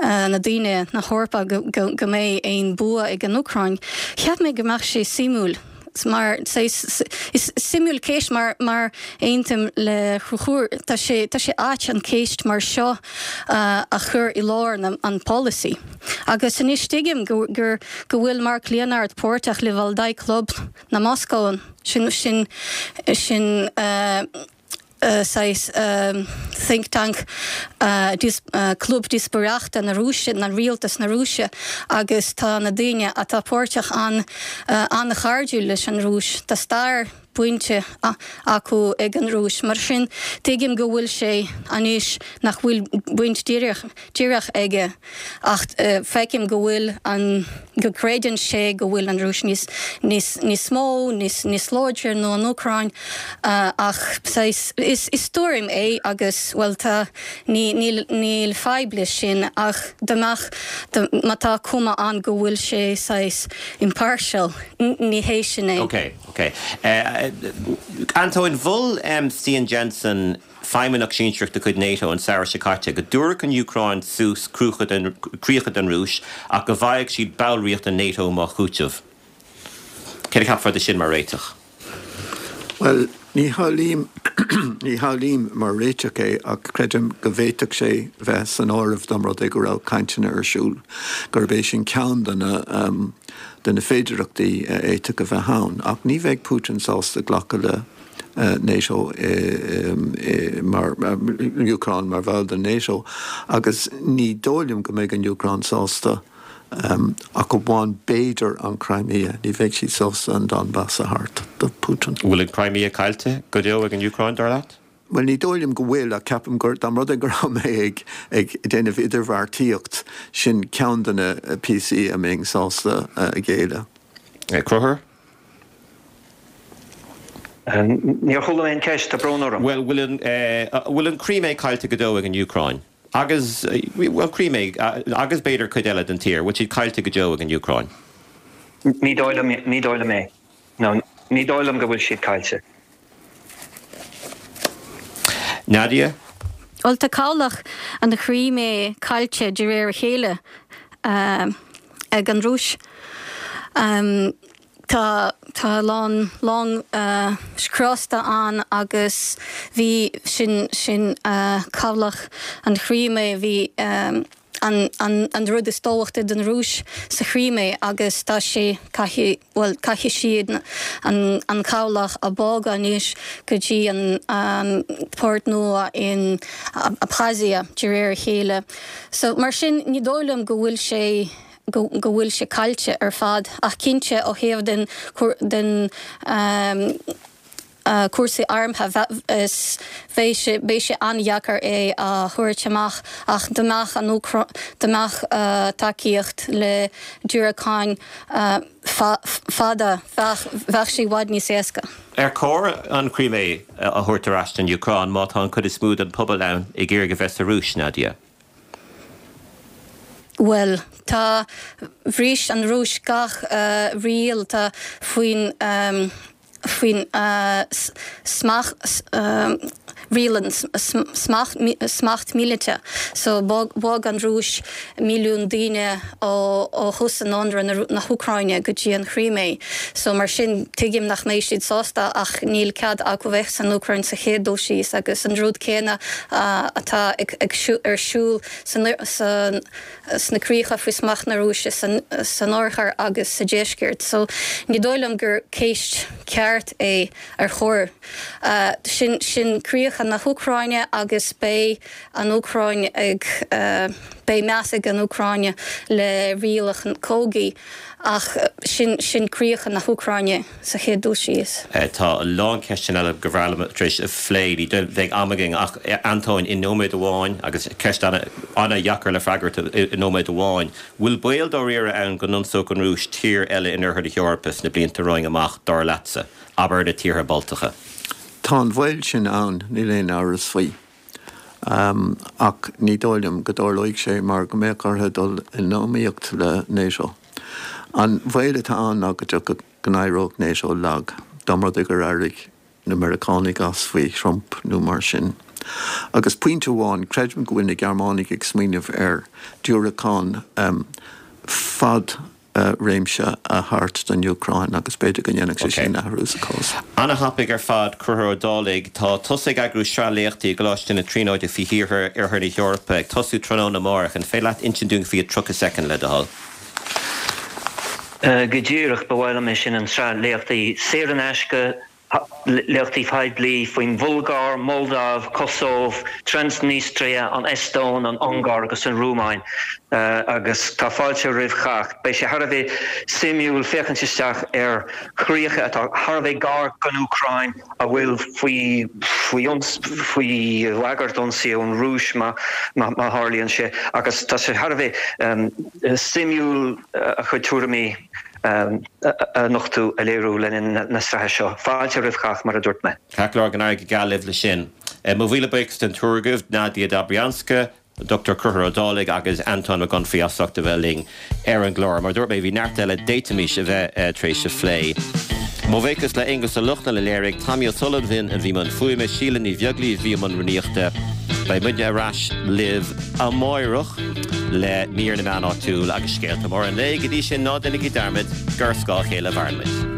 na daoine na hEorpa go go mbeidh aon bua ag an Úcráin. Cheap mé go mbeadh sé suimiúil mar is suimiúil ceist mar mar aontaím le Conchúr tá sé tá sé ait an ceist mar seo a chur i lár na an polasaí. Agus anois tuigim go gur go bhfuil Mark Leonard páirteach le Valdai Club na Moscó, sin, sin, sin saghas think tank, club díospóireachta na Rúise, na rialtas na Rúise agus tá na daoine atá páirteach ann an-chairdiúil leis an Rúis. Tá stair bainte acu ag an Rúis. Mar sin, tuigim go bhfuil sé anois nach bhfuil baint díreach, díreach aige ach feicim go bhfuil an, go gcreideann sé go bhfuil an Rúis níos, níos, níos mó, níos, níos láidre ná an Úcráin ach saghas, is, is tuairim é agus, bhuel tá, ní, níl, níl fadhb leis sin ach dá mbeadh, má tá cuma ann go bhfuil sé saghas impartial, ní hé sin é. Ok, ok. Antóin, mhol Stian Jensen, feidhmeannach sinsearach de chuid NATO an samhradh seo caite, go dtabharfadh an Úcráin suas críocha don Rúis ach go bhfaigheadh siad ballraíocht in NATO mar chúiteamh. Céard a cheapfá de sin mar réiteach? Bhuel, ní shamhlaím, ní shamhlaím mar réiteach é ach creidim go bhféadfadh sé bheith san áireamh dá mba rud é go raibh cainteanna ar siúl, gurb é sin ceann de na, de na féidearthachtaí a fhéadfadh a bheith ann. Ach ní bheidh Putin sásta glacadh le. NATO mar Úcráin mar bhall den NATO agus ní dóigh liom go mbeidh an Úcráin sásta ach amháin b'fhéidir an Crimea, ní bheidh siad sásta an Donbas a thabhairt do Putin. Bhfuil an Crimea caillte go deo ag an Úcráin, dar leat? Bhuel, ní dóigh liom go bhfuil, ach ceapaim gur, dá mba rud é go raibh mé ag, ag déanamh idirbheartaíocht, sin ceann de na píosaí a mbeinn sásta a ghéilleadh. Conchúr? Níor chuala mé an ceist, tá brón orm. Bhuel, bhfuil an, bhfuil an Chrímé caillte go deo ag an Úcráin? Agus, bhuel, Crímé, agus b'fhéidir cuid eile den tír, bhfuil siad caillte go deo ag an Úcráin? Ní dóigh liom, ní dóigh liom é. No, ní dóigh liom go bhfuil siad caillte. Nadia? Bhuel, tá cabhlach an Chrímé caillte de réir a chéile ag an Rúis. Tá tá a lán long scriosta ann agus bhí sin sin cabhlach an Chrímé bhí an an rud is tábhachtaí don Rúis sa Chrímé agus tá sé caithfidh bhuel caithfidh siad an an cabhlach a bhogadh anois go dtí an an port nua in Abkhazia de réir a chéile. So mar sin ní dóigh liom go bhfuil sé go go bhfuil sé caillte ar fad ach cinnte ó thaobh den den cúrsaí armtha, is bheidh sé, beidh sé an-dheacair é a thabhairt amach ach dá mbeadh an Úcráin, dá mbeadh tacaíocht le diúracáin fada, bheadh, bheadh sé i bhfad níos éasca. Ar chóir an Chrímé a thabhairt ar ais don Úcráin má tá an chuid is mó den pobal ann ag iarraidh a bheith sa Rúis, Nadia? Bhuel, tá, bhris an Rúis gach riail, tá faoin, faoin smacht, riail an smacht míleata. So bhog an Rúis milliún daoine ó thús an ionradh na hÚcráine go dtí an Chrímé. So mar sin tuigim nach mbeidh siad sásta ach níl cead acu bheith san Úcráin sa chéad dul síos agus an rud céanna atá ar siúl san sna críocha faoi smacht na Rúise san oirthear agus sa deisceart. So ní dóigh liom gur ceist ceart é ar chóir. Sin sin críocha na hÚcráine agus beidh an Úcráin ag beidh meas ag an Úcráin le rialacha cogaidh ach sin sin críocha na hÚcráine. sa chéad dul síos. Tá a lán ceisteanna eile gur bhreá liom tar éis a phlé. Ní bheidh am againn ach Antóin, i nóiméad amháin, agus ceist an-deacair le freagairt i nóiméad amháin, bhfuil baol dáiríre ann go n-ionsódh an Rúis tír eile in oirthear na hEorpa sna blianta romhainn amach, dar leatsa? Abair na tíortha Baltacha. Tá an baol sin ann, níl aon amhras faoi. Ach ní dóigh liom go dtarlóidh sé mar go mbeadh orthu dul in iomaíocht le NATO. An baol atá ann ná go dtiocfadh, go n-éireodh NATO lag, dá mba rud é gur éirigh na Meiriceánaigh as faoi Trump nó mar sin. Agus pointe amháin, creidim go bhfuil na Gearmánaigh ag smaoineamh ar diúracán fad réimse a thabhairt don Úcráin agus b'fhéidir go ndéanfadh sé sin athrú sa chás. Ana-thapaidh ar fad, Conchúr Ó Dálaigh. Tá tusa ag eagrú sraith léachtaí i gColáiste na Tríonóide faoi thíortha Oirthear na hEorpa, ag tosú tráthnóna amárach. An féidir leat insint dúinn faoi i 30 soicind, le do thoil? Go díreach, ba mhaith liom é sin, an tsraith léachtaí saor in aisce, léachtaí poiblí faoin Bhulgáir, Moldáiv, Cosóv, Transnistria, an Eastóin, an Ungáir agus an Rúmáin agus tá fáilte roimh chách. Beidh sé thar a bheith suimiúil féachaint isteach ar chríocha atá thar a bheith gar don Úcráin a bhfuil faoi faoi bhagairt ionsaí ón Rúis má tharlaíonn sé agus tá sé thar a bheith suimiúil a chuid tuairimí a nochtadh, a léiriú le linn na sraithe seo. Fáilte roimh chách, mar a dúirt mé. Ceart go leor, go n-éirí go geal libh leis sin. Mo mhíle buíochas den triúr agaibh, Nadia Dobrianska, Dr Conchúr Ó Dálaigh agus Antóin Mac Unfraidh as ucht a bheith linn ar an gclár. Mar a dúirt mé, bhí neart eile d'fhéadfaimis a bheith tar éis a phlé. Mo bhuíochas le Aonghus Ó Lochlainn a léirigh, Tommy Ó Sullivan a bhí i mbun fuaime, Síle Ní Bheaglaoich a bhí i mbun rúnaíochta. Beidh muidne ar ais libh amáireach le mír na meán áitiúil agus scéalta móra an lae. Go dtí sin, ná déanaigí dearmad gur ar scáth a chéile a mhaireann muid.